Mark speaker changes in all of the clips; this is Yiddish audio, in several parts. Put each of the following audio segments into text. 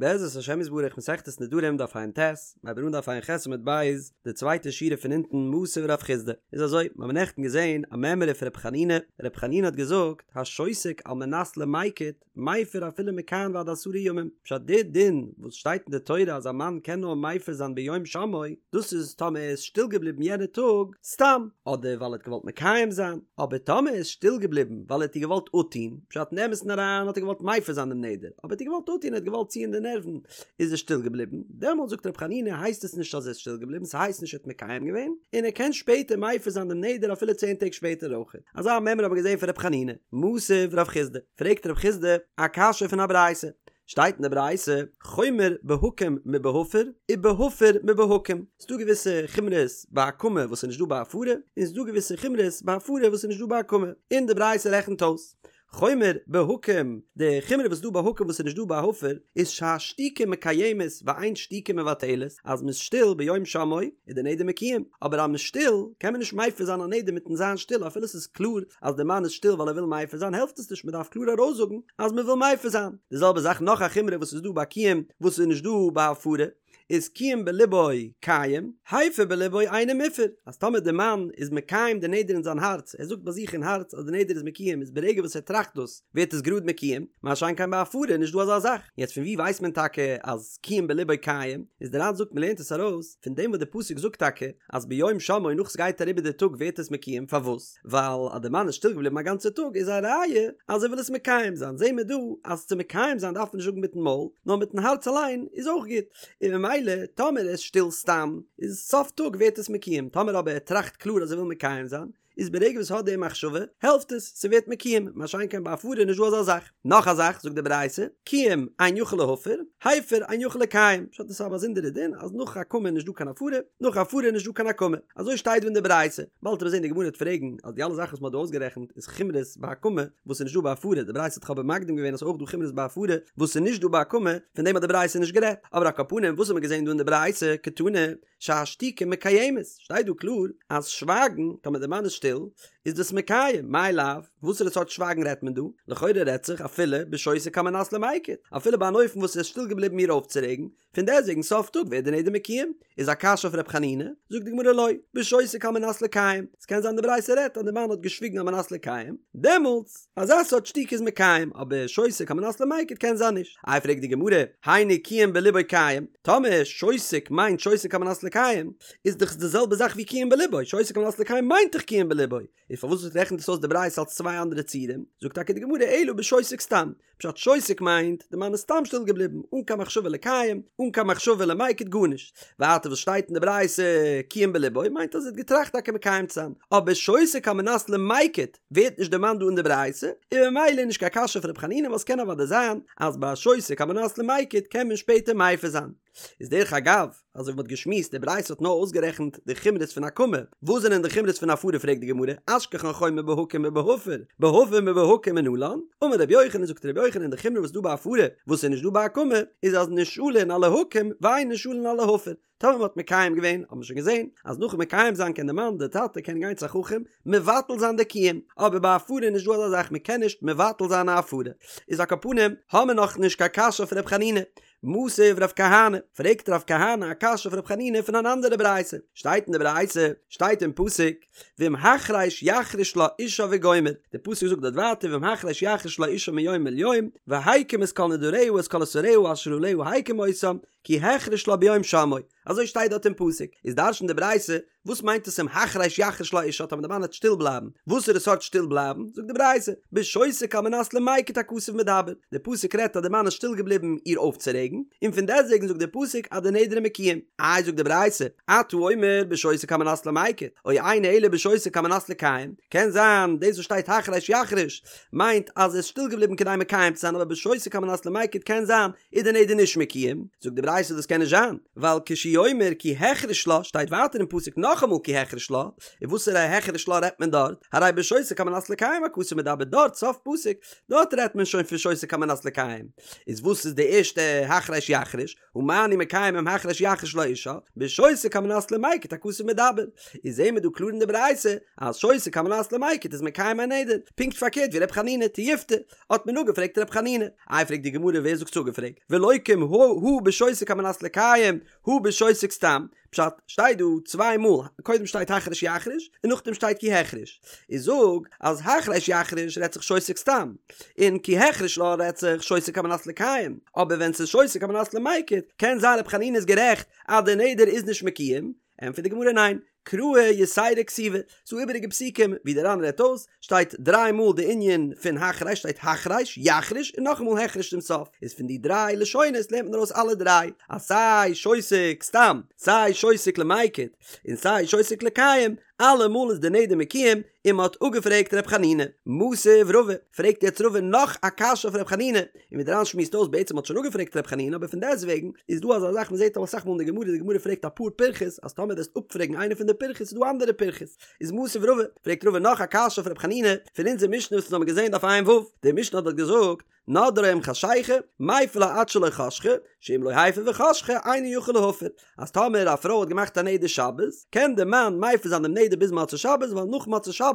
Speaker 1: בעזרת השם יתברך מסכת נדרים דף ע"ט, מ'הייבט אן דף ע"ח עמוד ב', די צווייטע שורה פון אונטן מתיב רב חסדא, איז אזוי, מיר האבן נעכטן געזען א מימרא פון ר' חנינא, ר' חנינא האט געזאגט, השותק על מנת למיקט, מפר אפילו מכאן ועד עשרה ימים, פשט די דין וואס שטייט אין די תורה אז א מאן קען נאר מפר זיין ביום שמעו, דאס איז טאמער ער איז שטיל געבליבן יענע טאג סתם, אדער ווייל ער האט געוואלט מקיים זיין, אבער טאמער ער איז שטיל געבליבן ווייל ער האט איר געוואלט אפטון, פשט אין אמת'ן אריין האט ער געוואלט מפר זיין דעם נדר, אבער ער האט איר געוואלט אפטון, ער האט געוואלט ציען די נערוון, איז ער שטיל געבליבן, דעמאלט זאגט ר' חנינא הייסט עס נישט אז ער איז שטיל געבליבן, ס'הייסט נישט ער האט מקיים געווען, און ער קען שפעטער מפר זיין דעם נדר אפילו צען טעג שפעטער אויך. אזא מימרא האבן מיר געזען פון ר' חנינא. מתיב רב חסדא, פרעגט רב חסדא א קשיא פון א ברייתא, שטייט אין די ברייתא, חומר בהקם מבהפר, ובהפר מבהקם, ס'דא געוויסע חומרות ביי הקמה וואס איז נישט דא ביי הפרה, און ס'דא געוויסע חומרות ביי הפרה וואס איז נישט דא ביי הקמה, און די ברייתא רעכנט אויס, חומר בהקם, די חומרא וואס איז דא ביי הקם וואס איז נישט דא ביי הפר, איז שהשתיקה מקיימת ואין שתיקה מבטלת, אז מ'איז שטיל ביום שמעו איז די נדר מקוים, אבער אז מ'איז שטיל קען מען נישט מפר זיין א נדר מיטן זיין שטיל אפילו ס'איז קלאר אז די מאן איז שטיל ווייל ער וויל מפר זיין העלפט עס נישט מ'דארף קלאר ארויסזאגן אז מ'וויל מפר זיין. די זעלבע זאך נאך א חומרא וואס איז דא ביי קיום וואס איז נישט דא ביי הפרה, איז קיים בלבו קיים, הפר בלבו אינו מופר, אז טאמער די מאן איז מקיים די נדר אין זיין הארץ, ער זאגט ביי זיך אין הארץ אז די נדר איז מקוים איז ברגע וואס ער טראכט דאס ווערט עס גראד מקוים, מה שאין כן ביי הפרה איז נישט דא אזא זאך. יעצט פון ווי ווייסט מען טאקע אז קיים בלבו קיים? איז די ר"ן זאגט מ'לערנט עס ארויס פון דעם וואס די פסוק זאגט טאקע אז ביום שמעו נאך ס'גייט אריבער די טאג ווערט עס מקוים, פארוואס? ווייל אז די מאן איז שטיל געבליבן א גאנצע טאג איז א ראיה אז ער וויל עס מקיים זיין, זעהן מיר דא אז צו מקיים זיין דארף מען נישט זאגן מיטן מויל, נאר מיטן הארץ אליין איז אויך גוט, און ממילא טאמער ער איז שטיל סתם איז סוף טאג ווערט עס מקוים, טאמער אבער ער טראכט קלאר אז ער וויל מקיים זיין, איז ברגע וואס ער האט די מחשבה העלפט עס, ס'ווערט מקוים, מה שאין כן ביי הפרה איז נישט דא אזא זאך. נאך א זאך זאגט די ברייתא, קיים אין יכול להפר, הפר אין יכול לקיים, פשט דאס איז א באזונדערע דין אז נאך הקמה איז נישט דא קיין הפרה, נאך הפרה איז נישט דא קיין הקמה, אזוי שטייט דא אין די ברייתא, באלד וועט מען זען די גמרא וועט פרעגן אז די אלע זאכן וואס מען האט דא אויסגערעכנט איז חומרות ביי הקמה וואס איז נישט דא ביי הפרה, די ברייתא האט דאך אבער מקדים געווען אז ס'איז אויך דא חומרות ביי הפרה וואס איז נישט דא ביי הקמה, פון דעם האט די ברייתא נישט גערעדט, אבער על כל פנים וואס האט מען געזען דא אין די ברייתא, קתני, שהשתיקה מקיימת, שטייט דא קלאר אז שווייגן, טאמער די מאן איז שטיל, איז דאס מקיים, מאי לאו, וואסערע סארט שווייגן רעדט מען דא? לכאורה רעדט זיך אפילו בשותק על מנת למיקט, אפילו ביי אן אופן וואס ער איז שטיל געבליבן איר אויפצורעגן, פון דעסטוועגן סוף טאג ווערט די נדר מקוים, איז א קשיא אויף ר' חנינא, זאגט די גמרא לא, בשותק על מנת לקיים, ס'קען זיין די ברייתא רעדט אז די מאן האט געשוויגן על מנת לקיים, דעמאלטס, אזא סארט שתיקה איז מקיים, אבער שותק על מנת למיקט קען זיין נישט. איי פרעגט די גמרא, היינו קיים בלבו קיים, טאמער שותק מיינט שותק על מנת לקיים, איז דאך די זעלבע זאך ווי קיים בלבו, שותק על מנת לקיים מיינט דאך קיים בלבו, איז פארוואס רעכנט עס אויס די ברייתא אלס צוויי אנדערע ציורים? זאגט טאקע די גמרא אלא בשותק סתם, פשט שותק מיינט די מאן איז סתם שטיל געבליבן אן קיין מחשבה לקיים, אן קיין מחשבה למיקט גארנישט, ווייטער וואס שטייט אין די ברייתא קיים בלבו מיינט אז ער האט געטראכט טאקע מקיים צו זיין, אבער שותק על מנת למיקט ווערט נישט דערמאנט דא אין די ברייתא, און ממילא איז נישט קיין קשיא פון ר' חנינא ווייל ס'קען אוודאי זיין אז ביי שותק על מנת למיקט קען מען שפעטער מפר זיין. איז דרך אגב, אזוי ווי מ'האט געשמועסט, די ברייתא האט נאר אויסגערעכנט די חומרות פון הקמה, וואס זענען די חומרות פון הפרה פרעגט די גמרא, אשכחן חומר בהקם מבהפר, בהפר מבהקם מנלן, אמר רבי יוחנן זאגט רבי יוחנן די חומרא וואס איז דא ביי הפרה וואס איז נישט דא ביי הקמה, איז אז נשאלין על ההקם ואין נשאלין על ההפר, טאמער מ'האט מקיים געווען, האט מען שוין געזען, אז נאכן מקיים זיין קען די מאן, די טאטע קען גיין צו א חכם, מבטל זיין די קיום, אבער ביי הפרה איז נישט דא אזא זאך מ'קען נישט מבטל זיין א הפרה. איז על כל פנים, האמיר נאך נישט קיין קשיא אויף ר' חנינא, מתיב רב כהנא, פרעגט רב כהנא א קשיא אויף רב חנינא פון אן אנדערע ברייתא, שטייט אין די ברייתא, שטייט אין פסוק, ואם החרש יחריש לה אישה וגומר, די פסוק זאגט דארט ווייטער ואם החרש יחריש לה אישה מיום אל יום, והקים את כל נדריה את כל אסריה אשר עליה הקים אותם, כי החריש לה ביום שמעו, אזוי שטייט דארט אין פסוק, איז דרש'נט די ברייתא, וואס מיינט עס אם החרש יחריש לה אישה טאמער די מאן וועט שטיל בלייבן, וואסערע סארט שטיל בלייבן, זאגט די ברייתא, בשותק על מנת למיקט הכתוב מדבר, די פסוק רעדט אז די מאן איז שטיל געבליבן איר אויפצורעגן, און פון דעסטוועגן זאגט די פסוק אז די נדר איז מקוים, איי זאגט די ברייתא, אתה אומר בשותק על מנת למיקט, או אינו אלא בשותק על מנת לקיים, קען זיין דאס וואס שטייט החרש יחריש מיינט אז ער איז שטיל געבליבן כדי מקיים צו זיין אבער בשותק על מנת למיקט קען זיין איז די נדר נישט מקוים, זאגט די ברייתא. ברייתא דאס קען נישט זיין, ווייל כשהוא אומר כי החריש לה שטייט ווייטער אין פסוק נאכאמאל כי החריש לה, און וואסערע החריש לה רעדט מען דארט? הרי בשותק על מנת לקיים הכתוב מדבר דארט סוף פסוק, דארט רעדט מען שוין פון שותק על מנת לקיים, איז וואס איז די ערשטע החרש יחריש? הא מה אני מקיים אם החרש יחריש לה אשה, בשותק על מנת למיקט הכתוב מדבר, איז זעהן מיר דא קלאר אין די ברייתא אז שותק על מנת למיקט איז מקיים א נדר, פונקט פארקערט ווי ר' חנינא תיובתא, האט מען אפגעפרעגט ר' חנינא, איי פרעגט די גמרא ווער זאגט ס'איז אפגעפרעגט, ולוקים הא בשותק על מנת לקיים הא בשותק סתם, פשט, שטייט דא צוויי מאל, קודם שטייט החרש יחריש, און נאכדעם שטייט כי החריש. איז זאג, אז החרש יחריש רעדט זיך שותק סתם, און כי החריש לה רעדט זיך שותק על מנת לקיים, אבער ווען ס'איז שותק על מנת למיקט, קען זיין רבי חנינא איז גערעכט אז די נדר איז נישט מקוים, ענטפערט די גמרא ניין, קראי יתירא כתיבי, ס'דא איבעריגע פסוקים ווי די ר"ן רעדט אויס, שטייט דריי מאל די ענין פון החרש שטייט החרש, יחריש, און נאכאמאל החריש צום סוף, איז פון די דריי לשונות לערנט מען ארויס אלע דריי, אז סיי שותק סתם, סיי שותק למיקט, און סיי שותק לקיים, אלעמאל איז די נדר מקוים, און מען האט אפגעפרעגט ר' חנינא. מתיב רבא, פרעגט יעצט רבא נאך א קשיא אויף ר' חנינא, און ווי די ר"ן שמועסט אויס בעצם האט שוין אפגעפרעגט ר' חנינא אבער פון דעסטוועגן איז דא אזא זאך מען זעט אסאך מאל אין די גמרא די גמרא פרעגט אפאר פירכות אז טאמער וועסט אפפרעגן איינע פון די פירכות איז דא אנדערע פירכות איז מתיב רבא, פרעגט רבא נאך א קשיא אויף ר' חנינא פון אונזער משנה וואס אונז האבן געזען דף ע"ו, די משנה האט דארט געזאגט נדרה עם חשיכה, מיפר לה עד שלא חשכה, שאם לא הפר וחשכה אינו יכול להפר, אז טאמער א פרוי האט געמאכט א נדר שבת, קען די מאן מפר זיין דעם נדר ביז מוצאי שבת, ווייל נאך מוצאי שבת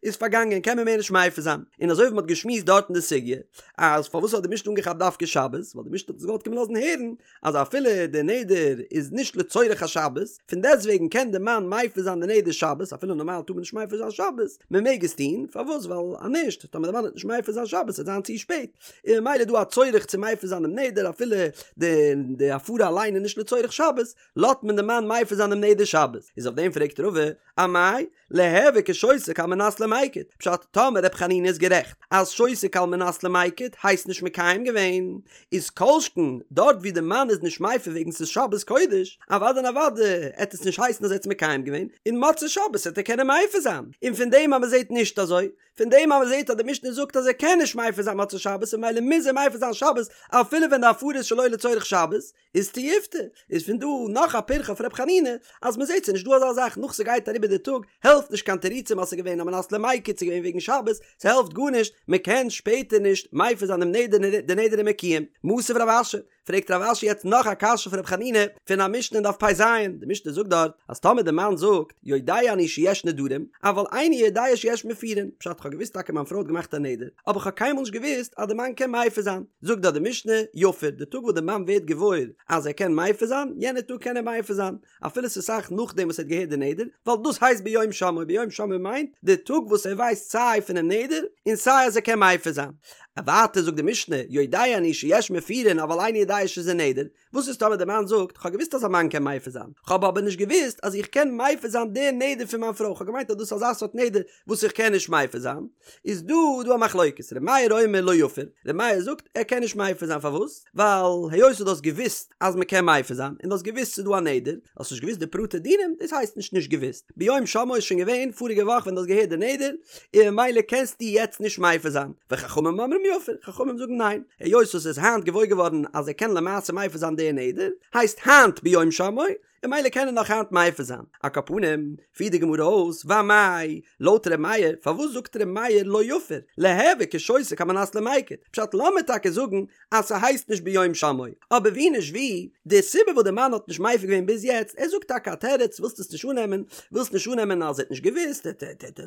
Speaker 1: איז פארגאנגען קען מען מער נישט מפר זיין. און אזוי ווי מען האט געשמועסט דארט אין די סוגיא, אז פארוואס האט די משנה אנגעכאפט דווקא שבת, ווייל די משנה האט אונז געוואלט קומען לאזן הערן, אז אפילו די נדר איז נישט לצורך השבת, פון דעסטוועגן קען די מאן מפר זיין די נדר שבת, אפילו נארמאל טאר מען נישט מפר זיין שבת, מען מעג עס טון, פארוואס? ווייל אז נישט, טאמער די מאן וועט נישט מפר זיין שבת וועט זיין צו שפעט, און ממילא איז דא א צורך צו מפר זיין דעם נדר אפילו די די הפרה אליין איז נישט לצורך שבת, לאזט מען די מאן מפר זיין דעם נדר שבת, איז אויף דעם פרעגט רבא, אמאי? ליהוי כשותק על מנת למיקט, פשט, טאמער ר' חנינא איז גערעכט אז שותק על מנת למיקט הייסט נישט מקיים געווען, איז כל שכן דארט ווי די מאן איז נישט מפר וועגן ס'איז שבת קודש, אוודאי און אוודאי עט עס נישט הייסן אז ער האט עס מקיים געווען, און מוצאי שבת עט ער קענען מפר זיין, און פון דעם אז מ'זעט נישט אזוי, פון דעם אז מ'זעט אז די משנה זאגט אז ער קען נישט מפר זיין מוצאי שבת און ממילא מוז ער מפר זיין שבת אפילו ווען די הפרה איז שלא לצורך שבת, איז תיובתא, איז פון דא נאך א פירכא אויף ר' חנינא, אז מ'זעט ס'איז נישט דא אזא זאך נאך ס'גייט אריבער די טאג, העלפט נישט קיין תירוצים אז ס'איז געווען על מנת למיקט ס'איז געווען וועגן שבת, ס'העלפט גארנישט, מ'קען שפעטער נישט מפר זיין דעם נדר די נדר איז מקוים. מתיב רב אשי, פרעגט רב אשי יעצט נאך א קשיא פון ר' חנינא פון א משנה אין דף פ"ז, די משנה זאגט דארט אז טאמער די מאן זאגט יודע אני שיש נדרים, אבל איני יודע שיש מפירין, פשט כ'האב געוואוסט טאקע מיין פרוי האט געמאכט א נדר, אבער כ'האב קיינמאל נישט געוואוסט אז די מאן קען מפר זיין, זאגט דארט די משנה, יפר, די טאג וואס די מאן ווערט געוואויר אז ער קען מפר זיין, יענע טאג קען ער מפר זיין, אפילו ס'איז אסאך נאכדעם וואס ער האט געהערט די נדר, ווייל דאס הייסט ביום שמעו, ביום שמעו מיינט די טאג וואס ער ווייסט סיי פונעם נדר און סיי אז ער קען מפר זיין. ווייטער זאגט די משנה, יודע אני שיש מפירין אבל איני יודע שזה נדר, וואס איז טאמער די מאן זאגט, כ'האב געוואוסט אז א מאן קען מפר זיין, כ'האב אבער נישט געוואוסט אז איך קען מפר זיין די נדר פון מיין פרוי, כ'האב געמיינט אז דאס איז אזא סארט נדר וואס איך קען נישט מפר זיין, איז דא דא א מחלוקת, ר' מאיר אומר לא יפר, ר' מאיר זאגט ער קען נישט מפר זיין פארוואס? ווייל היות דו האסט געוואוסט אז מען קען מפר זיין, און דו האסט געוואוסט ס'איז דא א נדר, האסט נישט געוואוסט די פרטי דינים, דאס הייסט נישט נישט געוואוסט, ביום שמעו איז שוין געווען פאריגע וואך ווען דו האסט געהערט די נדר, און ממילא קענסטו יעצט נישט מפר זיין, וחכמים אומרים יפר, חכמים זאגן ניין, היות וואס ער איז היינט געוואויר געווארן אז ער קען למעשה מפר זיין די נדר, הייסט היינט ביום שמעו, און ממילא קען ער נאך היינט מפר זיין. על כל פנים, פירט די גמרא אויס, ואמאי, לויט ר' מאיר, פארוואס זאגט ר' מאיר לא יפר, ליהוי כשותק על מנת למיקט, פשט לאמיר טאקע זאגן אז ס'הייסט נישט ביום שמעו, אבער ווי נישט ווי, די סיבה וואס די מאן האט נישט מפר געווען ביז יעצט, ער זאגט טאקע א תירוץ, ווילסט עס נישט אננעמען, ווילסט נישט אננעמען אז ער האט נישט געוואוסט, ער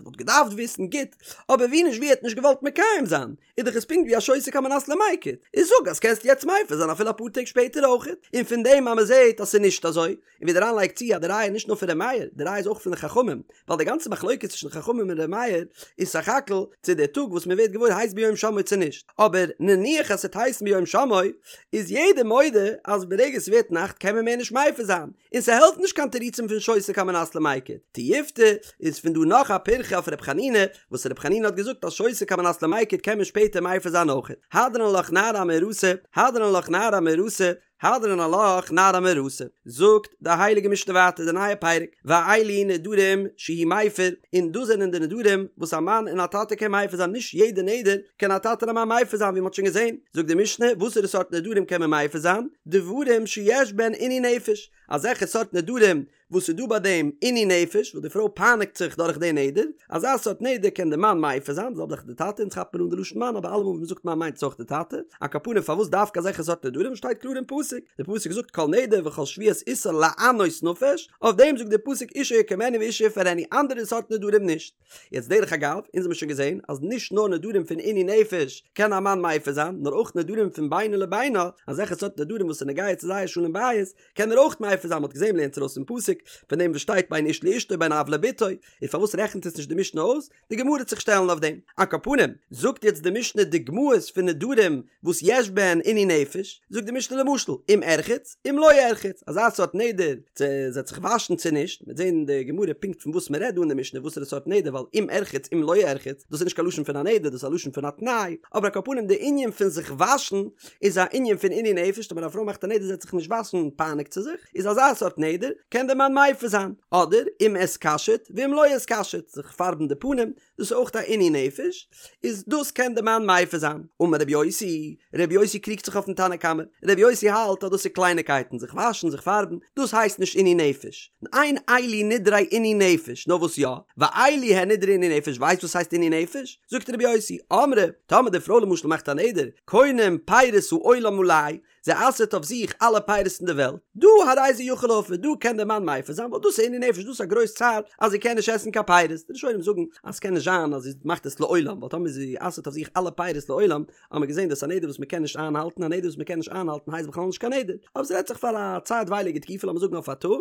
Speaker 1: וואלט געדארפט וויסן, גוט, אבער ווי נישט ווי ער האט נישט געוואלט מקיים זיין, איז דאך עס פונקט ווי א שותק על מנת למיקט, איז זאג אז קענסט יעצט מפר זיין אפילו אפאר טעג שפעטער אויכעט, און פון דעם אז מ'זעט אז ס'איז נישט אזוי, און ווי די ר"ן לייגט צו אז די ראיה איז נישט נאר פון ר' מאיר, די ראיה איז אויך פון די חכמים, ווייל די גאנצע מחלוקת צווישן חכמים און ר' מאיר איז סך הכל צו דער טאג וואס מען ווערט געוואויר הייסט ביום שמעו צו נישט, אבער נניח אז ס'וועט הייסן ביום שמעו, איז יעדער מודה אז ברגע ס'ווערט נאכט קען מען מער נישט מפר זיין, און ס'העלפט נישט קיין תירוצים פון שותק על מנת למיקט. תיובתא איז פון דא נאך א פירכא אויף ר' חנינא, וואס ר' חנינא האט געזאגט אז שותק על מנת למיקט קען מען שפעטער מפר זיין אויכעט. הדרן עלך נערה המאורסה, הדרן עלך נערה המאורסה. הדרן עלך נערה המאורסה, זאגט די הייליגע משנה ווייטער די נייע פרק, ואלו נדרים שהוא מפר, און דאס זענען די נדרים וואס א מאן און א טאטע קען מפר זיין, נישט יעדע נדר קען א טאטע און א מאן מפר זיין ווי מען האט שוין געזען, זאגט די משנה, וואסערע סארט נדרים קען מען מפר זיין? דברים שיש בהן עינוי נפש, אזעלכע סארט נדרים וואס איז דא ביי דעם עינוי נפש, וואס די פרוי פייניגט זיך דורך די נדר, אזא סארט נדר קען די מאן מפר זיין, די זעלבע זאך די טאטע, אונז כאפט מען אן די לשון מאן, אבער אלעמאל ווען מ'זאגט מאן מיינט עס אויך די טאטע, על כל פנים פארוואס דווקא אזעלכע סארט נדרים, שטייט קלאר אין פסוק, די פסוק זאגט כל נדר וכל שבועת איסור לענות נפש, אויף דעם זאגט די פסוק אישה יקימנו ואישה יפרנו, אנדערע סארט נדרים נישט. יעצט דרך אגב, אונז האמיר שוין געזען אז נישט נאר נדרים פון עינוי נפש קען א מאן מפר זיין, נאר אויך נדרים פון בינו לבינה, אזעלכע סארט נדרים וואס איז נוגע צו זייער שלום בית, קען ער אויך מפר זיין, מ'האט געזען מ'לערנט ארויס פון פסוק פון דעם וואס שטייט בין איש לאשתו בין אב לבתו, און פארוואס רעכנט עס נישט די משנה אויס? די גמרא וועט זיך שטעלן אויף דעם. על כל פנים, זאגט יעצט די משנה דוגמאות פון נדרים וואס יש בהן עינוי נפש, זאגט די משנה למשל, אם ארחץ, אם לא ארחץ, אזא סארט נדר, צו זי וועט זיך וואשן צו נישט, מ'וועט זען אין די גמרא פונקט פון וואס מ'רעדט דא אין די משנה וואסערע סארט נדר, ווייל אם ארחץ אם לא ארחץ, דאס איז נישט קיין לשון פון א נדר, דאס איז א לשון פון א תנאי, אבער על כל פנים די ענין פון זיך וואשן, איז א ענין פון עינוי נפש, טאמער א פרוי מאכט א נדר זי וועט זיך נישט וואשן פייניגט זי זיך, איז אזא סארט נדר קען דער מאן מפר זיין, אדער אם אתקשט ואם לא אתקשט, זיך פארבן די פנים, דאס איז אויך א עינוי נפש, איז דאס קען דער מאן מפר זיין. אמר רבי יוסי, רבי יוסי קריגט זיך אויפן תנא קמא, רבי יוסי האלט אז דאס איז קלייניקייטן, זיך וואשן, זיך פארבן, דאס הייסט נישט עינוי נפש, אין אלו נדרי עינוי נפש, נאר וואס יא, ואלו הן נדרי עינוי נפש, ווייסט וואס הייסט עינוי נפש? זאגט רבי יוסי, אמרה, טאמער די פרוי למשל מאכט א נדר, קונם פירות העולם עלי, זי אסר'ט אויף זיך אלע פירות אין די וועלט, דא הרי זה יכול להפר, דא קען דער מאן מפר זיין, ווייל דאס איז עינוי נפש, דאס איז א גרויס צער אז זי קען נישט עסן קיין פירות, די ראשונים זאגן אז ס'קען נישט זיין אז זי מאכט עס לעולם, ווייל טאמער זי אסר'ט אויף זיך אלע פירות לעולם, האט מען געזען דאס איז א נדר וואס מען קען נישט איינהאלטן, א נדר וואס מען קען נישט איינהאלטן הייסט בכלל נישט קיין נדר, אבער ס'רעדט זיך פאר א צייטווייליגע תקופה לאמיר זאגן אויף א טאג,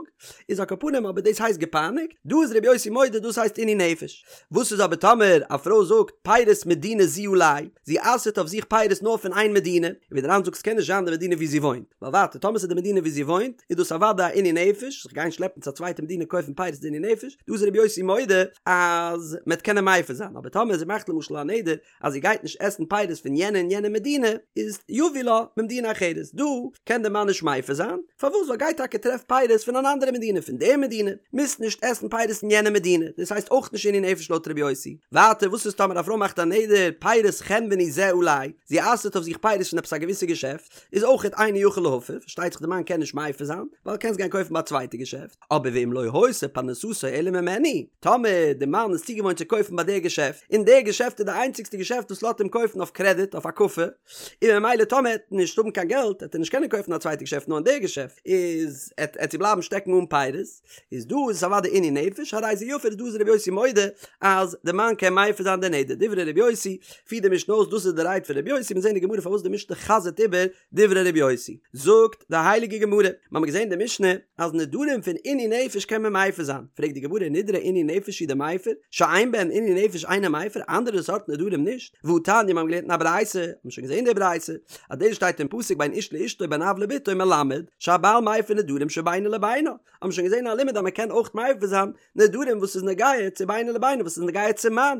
Speaker 1: איז על כל פנים אבער דאס הייסט געפייניגט, דא איז רבי יוסי מודה דאס הייסט עינוי נפש. וואס איז אבער טאמער א פרוי זאגט פירות מדינה זו עלי, זי אסר'ט אויף זיך פירות נאר פון איין מדינה, און ווי דער ר"ן זאגט ס'קען נישט זיין די מדינה ווי זי וואוינט, ווייל ווייטער טאמער ס'איז די מדינה ווי זי וואוינט איז דאס אוודאי א עינוי נפש, זיך גיין שלעפן צו א צווייטע מדינה קויפן פירות איז עינוי נפש, דא איז רבי יוסי מודה אז מ'עט קענען מפר זיין, אבער טאמער זי מאכט למשל א נדר אז זי גייט נישט עסן פירות פון יענע און יענע מדינה, איז יביא לה ממדינה אחרת, דא קען דער מאן נישט מפר זיין, פארוואס? ווייל גיי טאקע טרעף פירות פון אן אנדערע מדינה, פון די מדינה, מוזט נישט עסן פירות אין יענע מדינה, דאס הייסט אויך נישט עינוי נפש לויט רבי יוסי. ווייטער וואס איז טאמער א פרוי מאכט א נדר פירות חנווני זה עלי, זי אסר'ט אויף זיך פירות פון עפעס א געוויסע געשעפט, איז אויכעט אינו יכול להפר, פארשטייט זיך די מאן קען נישט מפר זיין, ווייל קענסט גיין קויפן ביי א צווייטע געשעפט, אבער ואם לא היתה פרנסתו אלא ממנו, טאמער די מאן איז צוגעוואוינט צו קויפן ביי די געשעפט, און די געשעפט איז די איינציגסטע געשעפט וואס לאזט אים קויפן אויף קרעדיט, אויף הקפה, און ממילא טאמער ער וועט נישט האבן קיין געלט וועט ער נישט קענען קויפן א צווייטע געשעפט נאר אין די געשעפט, איז עט זי בלייבן שטעקן אן פירות, איז דא איז עס אוודאי עינוי נפש, הרי זה יפר, דא איז רבי יוסי מודה אז די מאן קען מפר זיין די נדר, דברי רבי יוסי, פירט די משנה אויס דאס איז די רייד פון רבי יוסי, מיר זעהן אין די גמרא פארוואס די משנה חזר'ט איבער דברי רבי יוסי, זאגט די הייליגע גמרא, מיר האבן געזען אין די משנה אז נדרים פון עינוי נפש קען מען מפר זיין, פרעגט די גמרא נדרי עינוי נפש הוא דמיפר, שאין בהן עינוי נפש אינו מפר, אנדערע סארט נדרים נישט, והתניא מיר האבן געלערנט אין א ברייתא, האבן שוין געזען די ברייתא, אז דאס שטייט אין פסוק בין איש לאשתו בין אב לבתו מלמד שהבעל מפר נדרים שבינו לבינה, האבן שוין געזען א לימוד אז מען קען אויך מפר זיין נדרים וואס איז נוגע צו בינו לבינה וואס איז נוגע צום מאן,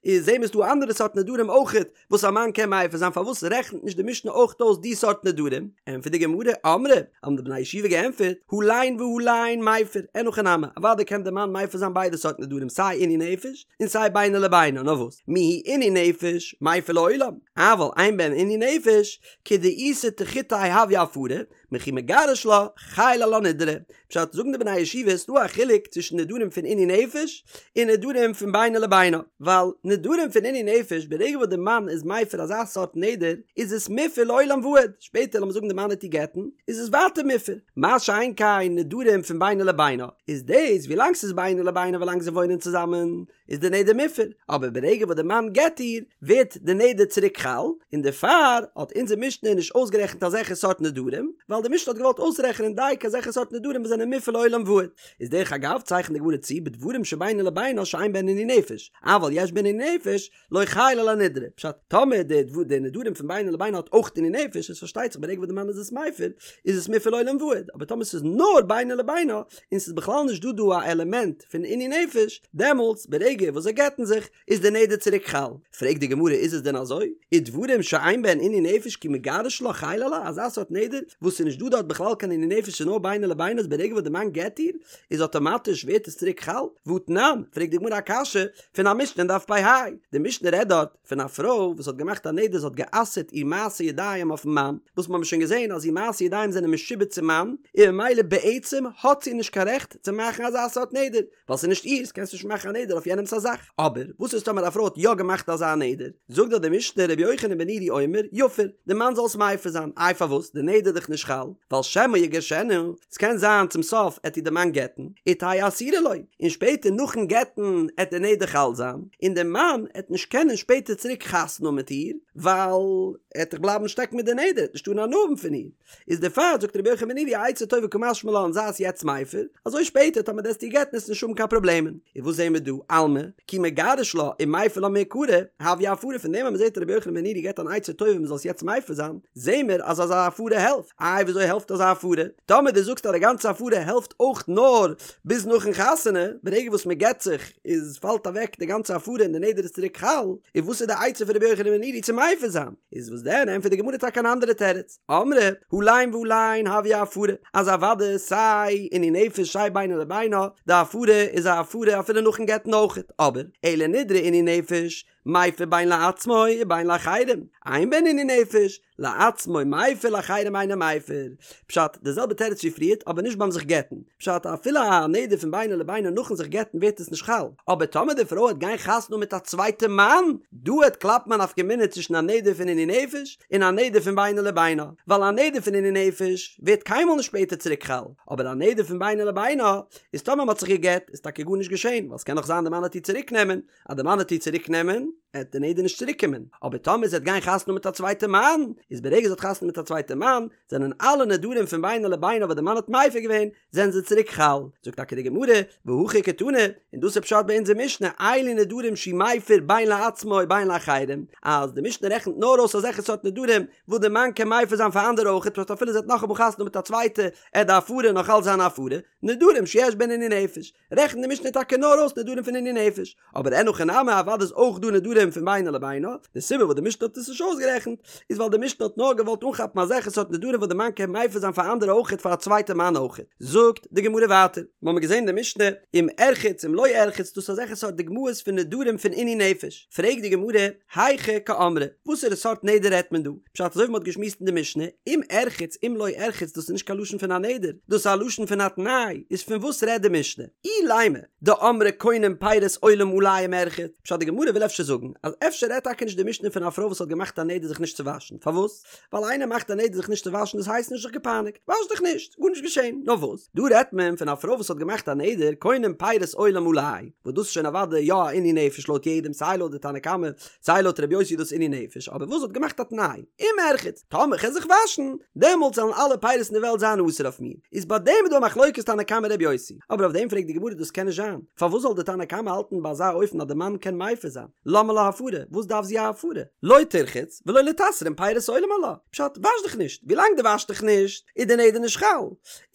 Speaker 1: איז זעהן מיר ס'דא אנדערע סארט נדרים אויכעט וואס א מאן קען מפר זיין פארוואס רעכנט נישט די משנה אויך אויס די סארט נדרים? ענטפערט די גמרא, אמרי, האבן די בני ישיבה געענטפערט, הלין והלין מפר, אין הכי נמי, אוודאי קען די מאן מפר זיין ביידע סארט נדרים סיי עינוי נפש און סיי בינו לבינה, נאר וואס, מיהו עינוי נפש מפר לעולם, אבל אין בהן עינוי נפש, כדאיתא תחותיה הויא הפרה, מכי מגרש לה, חיילא עלה נדרא. פשט, זאגן די בני הישיבה ס'דא א חילוק צווישן נדרים פון עינוי נפש און נדרים פון בינו לבינה, ווייל נדרים פון עינוי נפש ברגע וואס די מאן איז מפר אזא סארט נדר איז עס מופר לעולם ועד, שפעטער לאמיר זאגן די מאן וועט איר גט'ן איז עס ווייטער מופר, מה שאין כן נדרים פון בינו לבינה איז דאס ווילאנג ס'איז בינו לבינה ווילאנג זיי וואוינען צוזאמען איז די נדר מופר, אבער ברגע וואס די מאן גט איר, ווערט די נדר צוריק חל, און דערפאר האט אונזער משנה נישט אויסגערעכנט אזעלכע סארט נדרים, ווייל די משנה האט געוואלט אויסרעכענען דייקא אזעלכע סארט נדרים וואס זענען מופר לעולם ועד. איז דרך אגב צייכנט די גמרא צו בדברים שבינו לבינה שאין בהן עינוי נפש, אבל יש בהן עינוי נפש, לא חייל עלה נדרא, פשט, טאמער די די נדרים פון בינו לבינה האט אויך עינוי נפש, איז פארשטייט זיך ברגע. ברגע וואס די מאן איז עס מפר איז עס מופר לעולם ועד, אבער טאמער ס'איז נאר בינו לבינה און ס'איז בכלל נישט דא דא א עלעמענט פון עינוי נפש, דעמאלטס ברגע וואס זיי גט'ן זיך איז די נדר צוריק חל. פרעגט די גמרא איז עס דען אזוי? ודברים שאין בהן עינוי נפש כי מגרש לה חל עלה, אזא סארט נדר וואס ס'איז נישט דא דארט בכלל קיין עינוי נפש ס'איז נאר בינו לבינה אז ברגע וואס די מאן גט איר איז אטאמאטיש ווערט עס צוריק חל? והתנן, פרעגט די גמרא א קשיא פון א משנה אין דף פ"ה, די משנה רעדט דארט פון א פרוי וואס האט געמאכט א נדר זי האט גע'אסר'ט איר מעשה ידיים אויפן מאן, וואס מ'האמיר שוין געזען אז איר מעשה ידיים זענען משועבד צום מאן, און ממילא בעצם האט זי נישט קיין רעכט צו מאכן אזא סארט נדר, ווייל ס'איז נישט איר'ס קענסט נישט מאכן א נדר אויף יענעמ'ס א זאך. אבער וואס איז טאמער א פרוי האט יא געמאכט אזא נדר? זאגט דאך די משנה רבי יוחנן בן נורי אומר, יפר, די מאן זאל עס מפר זיין, איי פארוואס? די נדר איז דאך נישט חל, ווייל שמא יגרשנה, ס'קען זיין צום סוף עט איר די מאן גט'ן, ותהא אסורה לו, און שפעטער נאכן גט'ן עט די נדר חל זיין, און די מאן עט נישט קענען שפעטער צוריק חתונה האבן מיט איר, ווייל ער עט דאך בלייבן שטעקן מיט די נדר, ער עט נישט טארן הנאה האבן פון איר. איז דערפאר זאגט רבי יוחנן בן נורי א עצה טובה קא משמע לן זיי עס יעצט מפר, אזוי שפעטער טאמער דו עסט איר גט'ן עסט נישט האבן קיין פראבלעמען. און וואס זעהן מיר דא? אלמא, כי מגרש לה ומפר לה מעיקרא, הויא הפרה פון דעם אז מ'זעהט רבי יוחנן בן נורי געבט אן עצה טובה מ'זאל עס יעצט מפר זיין, זעהן מיר אז אזא הפרה העלפט. איי וויאזוי העלפט אזא הפרה? טאמער דו זאגסט אז די גאנצע הפרה העלפט אויך נאר ביז נאכן חתונה, ברגע וואס מ'גט זיך איז פאלט אוועק די גאנצע הפרה און די נדר איז צוריק חל, איז וואס איז די עצה פון רבי יוחנן בן נורי צו מפר זיין? איז וואס דען? ענטפערט די גמרא טאקע אן אנדערע תירוץ. אמרי, הלין והלין הויא הפרה, אז אוודאי סיי עינוי נפש סיי בינו לבינה, די הפרה איז א הפרה אפילו נאכן גט'ן אויכעט, אבער, אלא נדרי עינוי נפש, מפר בין לעצמו ובין לאחרים, אין בהן עינוי נפש, לעצמו מפר לאחרים אינו מפר. פשט, די זעלבע תירוץ ווי פריערט, אבער נישט ביים זיך גט'ן. פשט, אפילו א נדר פון בינו לבינה נאכן זיך גט'ן ווערט עס נישט חל, אבער טאמער די פרוי העט גיין חתונה מיט א צווייטע מאן, דא העט קלאפן א נפקא מינה צווישן א נדר פון עינוי נפש און א נדר פון בינו לבינה, ווייל א נדר פון עינוי נפש ווערט קיינמאל נישט שפעטער צוריק חל, אבער א נדר פון בינו לבינה איז טאמער מ'האט זיך געגט איז טאקע גארנישט געשען, ווייל ס'קען נאך זיין די מאן העט איר צוריק נעמען, אז די מאן העט איר צוריק נעמען העט די נדר נישט צוריק קומען, אבער טאמער זי העט גיין חתונה מיט א צווייטע מאן, איז ברגע זי האט חתונה מיט א צווייטע מאן, זענען אלע נדרים פון בינו לבינה וואס די מאן האט מפר געווען, זענען זיי צוריק חל. זאגט טאקע די גמרא, והכי קתני, און דאס איז פשט ביי אונזער משנה, אלו נדרים שהוא מפר בין לעצמו ובין לאחרים, אז די משנה רעכנט נאר אויס אזעלכע סארט נדרים וואס די מאן קען מפר זיין פאר אנדערע אויכעט, פשט אפילו זי האט נאכאמאל חתונה מיט א צווייטע, עט די הפרה נאך אלץ זיין א הפרה, נדרים שיש בהן עינוי נפש. רעכנט די משנה טאקע נאר אויס נדרים פון עינוי נפש, אבער אין הכי נמי אוודאי איז אויך דא נדרים פון בינו לבינה, די סיבה וואס די משנה האט עס נישט אויסגערעכנט איז ווייל די משנה האט נאר געוואלט אנכאפן אזעלכע סארט נדרים וואס די מאן קען מפר זיין פאר אנדערע אויכעט פאר א צווייטע מאן אויכעט. זאגט די גמרא ווייטער, מ'האמיר געזען די משנה אם ארחץ אם לא ארחץ דאס איז אזעלכע סארט דוגמאות פון נדרים פון עינוי נפש, פרעגט די גמרא, היכי קאמרה, וואסערע סארט נדר רעדט מען דא? פשט אזוי ווי מ'האט געשמועסט אין די משנה, אם ארחץ אם לא ארחץ דאס איז נישט קיין לשון פון א נדר, דאס איז א לשון פון א תנאי, איז פון וואס רעדט די משנה? אילימא דאמרה קונם פירות עולם עלי אם ארחץ, פשט די גמרא וויל אפשר זאגן אז אפשר רעדט טאקע נישט די משנה פון א פרוי וואס האט געמאכט א נדר זיך נישט צו וואשן, פארוואס? ווייל איינער מאכט א נדר זיך נישט צו וואשן דאס הייסט נישט זיך געפייניגט, וואש דיך נישט, גארנישט געשען, נאר וואס? דא רעדט מען פון א פרוי וואס האט געמאכט א נדר קונם פירות עולם עלי, וואס דאס איז שוין אוודאי יא א עינוי נפש לויט יעדעם סיי לויט די תנא קמא סיי לויט רבי יוסי איז דאס עינוי נפש אבער וואס האט געמאכט א תנאי אם ארחץ טאמער כ'על זיך וואשן דעמאלטס זאלן אלע פירות אין די וועלט זיין אסור אויף מיר איז ביי דעם איז דא א מחלוקת תנא קמא רבי יוסי אבער אויף דעם פרעגט די גמרא דאס קען נישט זיין פארוואס זאל די תנא קמא האלטן ביי אזא אופן אז די מאן קען מפר זיין למה לה הפרה וואס דארף זי א הפרה לא תרחץ ולא ליתסרן פירות עולם עלה פשט וואש דיך נישט ווילאנג דו וואשט דיך נישט איז די נדר נישט חל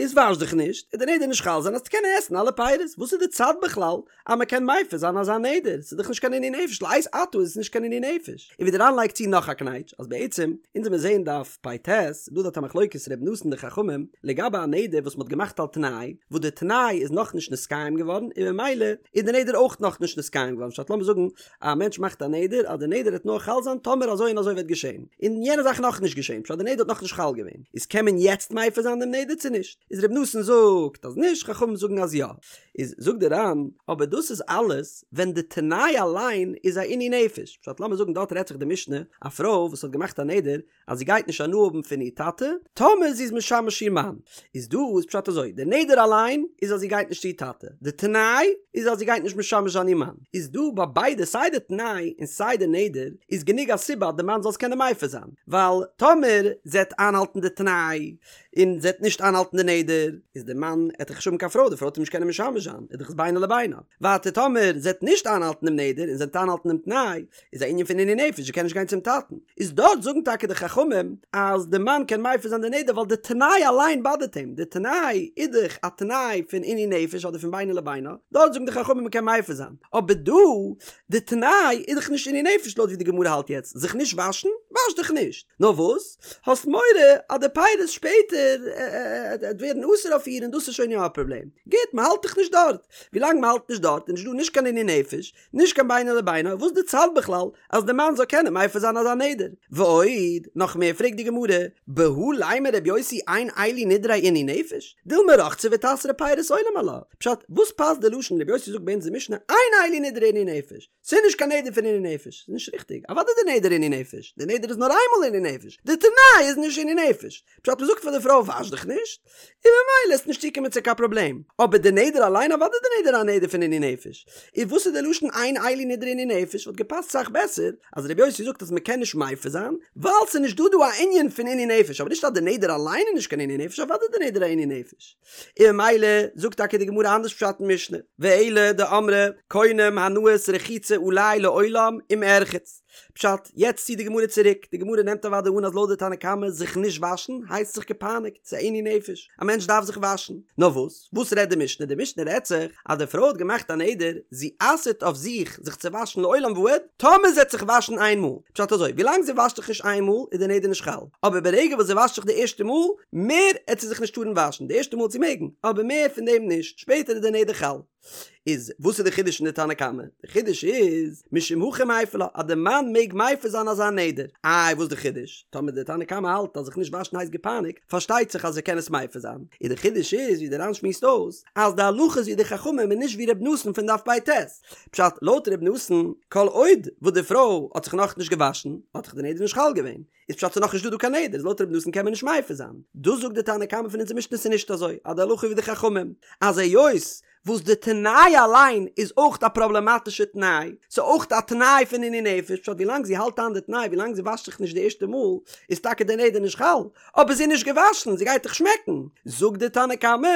Speaker 1: איז וואש דיך נישט איז די נדר נישט חל זיין אז קענען עסן אלע פירות וואס איז די צד בכלל אז מען קען מפר זיין אזא נדר, ס'איז דאך נישט קיין עינוי נפש, לעת עתה איז עס נישט קיין עינוי נפש. און ווי די ר"ן לייגט צו נאך א קנייטש, אז בעצם, אונז וועמיר זעהן דף פ"ט, איז דא דארט א מחלוקת ר' נתן און די חכמים, לגבי א נדר וואס מ'האט געמאכט על תנאי, וואס די תנאי איז נאכנישט נתקיים געווארן, און ממילא איז די נדר אויך נאכנישט נתקיים געווארן, פשט לאמיר זאגן א מענטש מאכט א נדר אז די נדר וועט נאר חל זיין טאמער אזוי און אזוי וועט געשען, און יענע זאך נאכנישט געשען, פשט די נדר האט נאכנישט חל געווען, איז קען מען יעצט מפר זיין דעם נדר צו נישט? איז ר' נתן זאגט אז נישט, חכמים זאגן אז יא. איז זאגט די ר"ן, אבער דאס איז אלעס ווען די תנאי אליין איז א עינוי נפש, פשט לאמיר זאגן דארט רעדט זיך די משנה, א פרוי וואס האט געמאכט א נדר אז זי גייט נישט הנאה האבן פון איר טאטע טאמער זי איז משמש איר מאן, איז דא איז פשט אזוי, די נדר אליין איז אז זי גייט נישט צו איר טאטע, די תנאי איז אז זי גייט נישט משמש זיין איר מאן, איז דא ביי ביידע סיי די תנאי און סיי די נדר איז גענוג א סיבה אז די מאן זאל עס קענען מפר זיין, ווייל טאמער זי העט איינהאלטן די תנאי. און זי וועט נישט איינהאלטן די נדר, איז די מאן עט דאך נישט האבן קיין פרוי, די פרוי וועט אים נישט קענען משמש זיין, איז דאך עס בינו לבינה. ווייטער טאמער זי וועט נישט איינהאלטן דעם נדר און זי וועט איינהאלטן דעם תנאי, איז א ענין פון עינוי נפש, זי קען נישט גיין צום טאטן. איז דארט זאגן טאקע די חכמים אז די מאן קען מפר זיין די נדר ווייל די תנאי אליין באדערט אים, די תנאי איז דאך א תנאי פון עינוי נפש אדער פון בינו לבינה, דארט זאגן די חכמים מען קען מפר זיין, אבער דא די תנאי איז דאך נישט עינוי נפש לויט ווי די גמרא האלט יעצט, זיך נישט וואשן? וואש דיך נישט! נאר וואס? האסט מורא אז די פירות שפעטער עט ווערן אסור אויף איר און דאס איז שוין יא א פראבלעם. גוט, מען האלט דאך נישט דארט. ווילאנג מען האלט נישט דארט איז נישט דא נישט קיין עינוי נפש, נישט קיין בינו לבינה, וואס די צד בכלל אז די מאן זאל קענען מפר זיין אזא נדר? ועוד, נאך מער פרעגט די גמרא, בהא לימא רבי יוסי אין אלו נדרי עינוי נפש, דילמא רחצה ואיתסרו פירות עולם עלה, פשט, וואס פאסט די לשון רבי יוסי זאגט ביי אונז אין משנה אין אלו נדרי עינוי נפש, ס'איז נישט קיין נדר פון עינוי נפש, ס'איז נישט ריכטיג, אוודאי די נדר עינוי נפש, די נדר איז נאר איינמאל עינוי נפש, די תנאי איז נישט עינוי נפש, פשט מ'זאגט פאר די פרוי וואש דיך נישט, און ממילא עסט נישט צוקומען צו קיין פראבלעם, אבער די נדר אליין אוודאי די נדר א נדר פון עינוי נפש, איז וואס איז די לשון אין אלו נדרי עינוי נפש וואלט געפאסט סאך בעסער אז רבי יוסי זאגט אז מ'קען נישט מפר זיין ווייל ס'איז נישט דא דא א ענין פון עינוי נפש אבער נישט אז די נדר אליין איז נישט קיין עינוי נפש אוודאי די נדר א עינוי נפש. און ממילא זאגט טאקע די גמרא אנדערש פשט אין משנה, ואלא דאמרה קונם הנאת רחיצה עלי לעולם אם ארחץ. פשט, יעצט ציט די גמרא צוריק, די גמרא נעמט אוודאי אן אז לויט די תנא קמא זיך נישט וואשן הייסט זיך געפייניגט, ס'איז א עינוי נפש, א מענטש דארף זיך וואשן. נאר וואס? וואס רעדט די משנה? די משנה רעדט זיך אז די פרוי האט געמאכט א נדר, זי אסר'ט אויף זיך זיך צו וואשן לעולם ועד, טאמער זי וועט זיך וואשן איין מאל. פשט אזוי, ווילאנג זי וואשט זיך נישט איין מאל איז די נדר נישט חל, אבער ברגע וואס זי וואשט זיך די ערשטע מאל, מער עט זי זיך נישט טארן וואשן, די ערשטע מאל עט זי מעגן, אבער מער פון דעם נישט, שפעטער איז די נדר חל. איז וואס איז די חידוש אין די תנא קמא? די חידוש איז, משום הכי מיפר לה, אז די מאן מעג מפר זיין אזא נדר. איי וואס די חידוש? טאמער די תנא קמא האלט אז זיך נישט וואשן הייסט געפייניגט, פארשטייט זיך אז ער קען עס מפר זיין. איז די חידוש איז ווי די ר"ן שמועסט אויס, אז די הלכה איז ווי די חכמים און נישט ווי ר' נתן פון דף פ"ט. פשט, לויט ר' נתן, כל עוד וואס די פרוי האט זיך נאכנישט געוואשן, האט דאך די נדר נישט חל געווען. איז פשט ס'איז נאכנישט דא דא קיין נדר, איז לויט ר' נתן קען מען נישט מפר זיין. דאס זאגט די תנא קמא פון אונזער משנה ס'איז נישט אזוי, אז די הלכה איז ווי די חכמים, אז היות וואס די תנאי אליין איז אויך א פראבלעמאטישע תנאי, ס'איז אויך א תנאי פון עינוי נפש, פשט ווילאנג זי האלט איין די תנאי, ווילאנג זי וואשט זיך נישט די ערשטע מאל, איז טאקע די נדר נישט חל, אבער זי איז נישט געוואשן, זי גייט דאך שמעקן. זאגט די תנא קמא,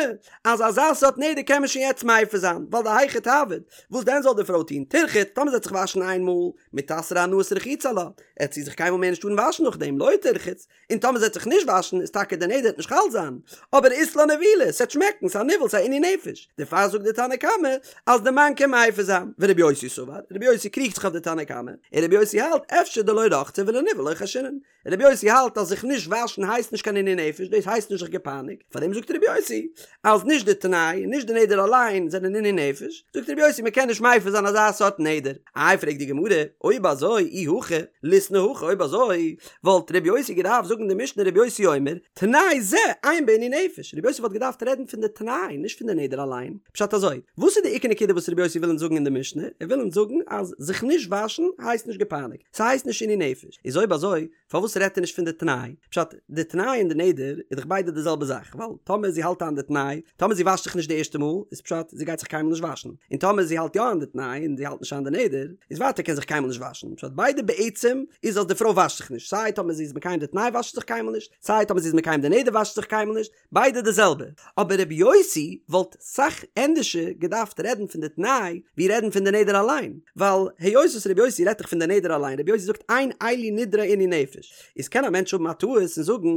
Speaker 1: אז אזא סארט נדר קען מען שוין יעצט מפר זיין, ווייל דהיכי תעביד, וואס דען זאל די פרוי טון, תרחץ, טאמער זי וועט זיך וואשן איין מאל, מיתסרא הנאת רחיצה עלה, עט זי זיך קיינמאל מער נישט טארן וואשן נאכדעם, לא תרחץ, און טאמער זי וועט זיך נישט וואשן איז טאקע די נדר וועט נישט חל זיין, אבער אית לה נבילה, ס'עט שמעקן, ס'איז א ניוול, ס'איז א עינוי נפש, דערפאר זאגט די תנא קמא אז די מאן קען מפר זיין, ורבי יוסי סבר, רבי יוסי קריגט זיך אויף די תנא קמא, און רבי יוסי האלט אפשר דלא רחצה ולניוול לא חיישינן, רבי יוסי האלט אז זיך נישט וואשן הייסט נישט קיין עינוי נפש, דאס הייסט נישט זיך געפייניגט, פארדעם זאגט רבי יוסי אז נישט די תנאי און נישט די נדר אליין זענען עינוי נפש, זאגט רבי יוסי מען קען נישט מפר זיין אזא סארט נדר. איי פרעגט די גמרא, אויב אזוי אי הכי ליתני הכי אויב אזוי וואלט רבי יוסי געדארפט זאגן די משנה רבי יוסי אומר תנאי זה אין בו עינוי נפש, רבי יוסי וואלט געדארפט רעדן פון די תנאי נישט פון די נדר אליין, פשט אזוי, וואס איז די עיקר נקודה וואס רבי יוסי וויל אונז זאגן אין די משנה, ער וויל אונז זאגן אז זיך נישט וואשן הייסט נישט געפייניגט, ס'הייסט נישט עינוי נפש, איז אויב אזוי פארוואס רעדט ער נישט פון די תנאי? פשט, די תנאי און די נדר איז דאך ביידע די זעלבע זאך, ווייל טאמער זי האלט איין די תנאי, טאמער זי וואשט זיך נישט די ערשטע מאל, איז פשט זי גייט זיך קיינמאל נישט וואשן, און טאמער זי האלט יא איין די תנאי און זי האלט נישט איין די נדר, איז ווייטער קען זיך קיינמאל נישט וואשן, פשט ביידע בעצם איז אז די פרוי וואשט זיך נישט, סיי טאמער זי איז מקיים די תנאי וואשט זי זיך קיינמאל נישט, סיי טאמער זי איז מקיים די נדר וואשט זי זיך קיינמאל נישט, ביידע די זעלבע, אבער רבי יוסי וואלט סאך ענדערשער געדארפט רעדן פון די תנאי ווי רעדן פון די נדר אליין, ווייל היות וואס רבי יוסי רעדט דאך פון די נדר אליין, רבי יוסי זאגט אין אלו נדרי עינוי נפש, איז קען א מענטש האבן א טעות און זאגן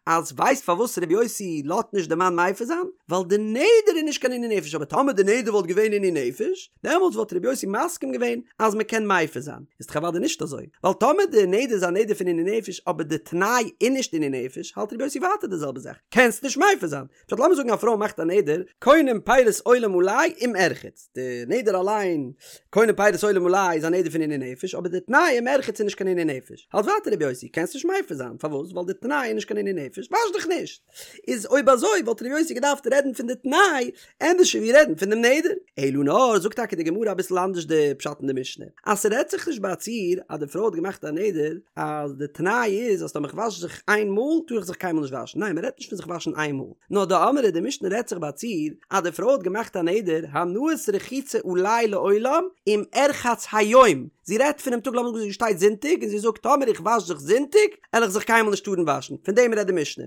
Speaker 1: אז ווייסט פארוואס רבי יוסי לאזט נישט די מאן מפר זיין? ווייל די נדר איז נישט קיין עינוי נפש, אבער טאמער די נדר וואלט געווען עינוי נפש, דעמאלטס וואלט רבי יוסי מסכים געווען אז מען קען מפר זיין, איז דאך אוודאי נישט אזוי, ווייל טאמער די נדר איז א נדר פון עינוי נפש אבער די תנאי איז נישט עינוי נפש, האלט רבי יוסי ווייטער די זעלבע זאך, קענסט נישט מפר זיין. פשט לאמיר זאגן א פרוי מאכט א נדר, קונם פירות עולם עלי אם ארחץ, די נדר אליין, קונם פירות עולם עלי איז א נדר פון עינוי נפש, אבער די תנאי אם ארחץ איז נישט קיין עינוי נפש, האלט ווייטער רבי יוסי, קענסט נישט מפר זיין, פארוואס? ווייל די תנאי איז נישט קיין עינוי נפש, וואש דיך נישט. איז אויב אזוי וואלט רבי יוסי געדארפט רעדן פון די תנאי ענדערש ווי רעדן פון דעם נדר. אלא נאר זאגט טאקע די גמרא אביסל אנדערש די פשט אין די משנה, אז ס'רעדט זיך נישט ביי א ציור אז די פרוי האט געמאכט א נדר אז די תנאי איז אז טאמער כ'וואש זיך איין מאל טאר איך זיך קיינמאל נישט וואשן, ניין מ'רעדט נישט פון זיך וואשן איין מאל, נאר דאמרי די משנה רעדט זיך ביי א ציור אז די פרוי האט געמאכט א נדר הנאת רחיצה עלי לעולם אם ארחץ היום. זי רעדט פונעם טאג לאמיר זאגן זי שטייט זונטאג און זי זאגט טאמער איך וואש זיך זונטאג על איך זיך קיינמאל נישט טארן וואשן, פון דעם רעדט די משנה.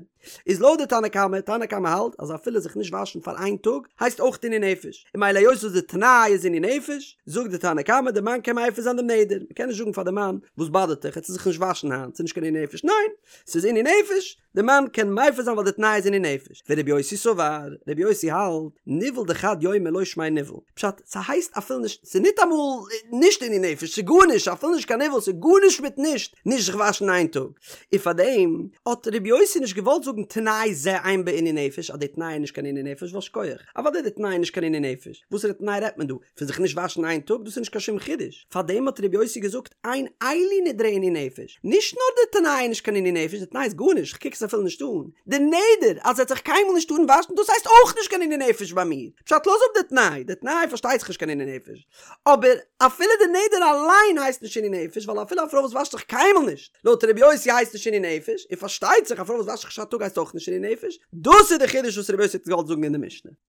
Speaker 1: איז לויט די תנא קמא, תנא קמא האלט אז אפילו זיך נישט וואשן פאר איין טאג הייסט אויך עינוי נפש, און ממילא היות וואס די תנאי איז עינוי נפש, זאגט די תנא קמא די מאן קען מפר זיין דעם נדר, מ'קען נישט זאגן פאר די מאן וואס באדערט דיך, עטס זיך נישט וואשן היינט, ס'איז נישט קיין עינוי נפש, ניין! ס'איז עינוי נפש, די מאן קען מפר זיין ווייל די תנאי איז עינוי נפש, ורבי יוסי סבר, רבי יוסי האלט, ניוול דחד יומא לא שמיה ניוול, פשט, ס'הייסט אפילו נישט, ס'איז ניטאמאל נישט עינוי נפש, ס'איז גארנישט, אפילו נישט קיין ניוול, ס'איז גארנישט מיט נישט, נישט זיך וואשן איין טאג. און פארדעם האט רבי יוסי נישט געוואלט זאגן תנאי זה אין בו עינוי נפש אז די תנאי איז נישט קיין עינוי נפש ווייל שכוח, אוודאי די תנאי איז נישט קיין עינוי נפש, וואסערע תנאי רעדט מען דא? פון זיך נישט וואשן איין טאג? דאס איז נישט קיין שום חידוש, פארדעם האט רבי יוסי געזאגט אין אלו נדרי עינוי נפש, נישט נאר די תנאי איז נישט קיין עינוי נפש, די תנאי איז גארנישט, כ'קוק עס אפילו נישט אן, די נדר אז ער וועט זיך קיינמאל נישט טארן וואשן דאס הייסט אויך נישט קיין עינוי נפש ביי מיר, פשט לאז אפ די תנאי, די תנאי פארשטייט זיך נישט קיין עינוי נפש, אבער אפילו די נדר אליין הייסט נישט עינוי נפש, ווייל אפילו א פרוי וואס וואשט זיך קיינמאל נישט, לויט רבי יוסי הייסט נישט עינוי נפש, און פארשטייט זיך א פרוי וואס וואשט זיך נישט א טאג הייסט אויך נישט עינוי נפש, דאס איז די חידוש וואס רבי יוסי האט געוואלט זאגן אין די משנה.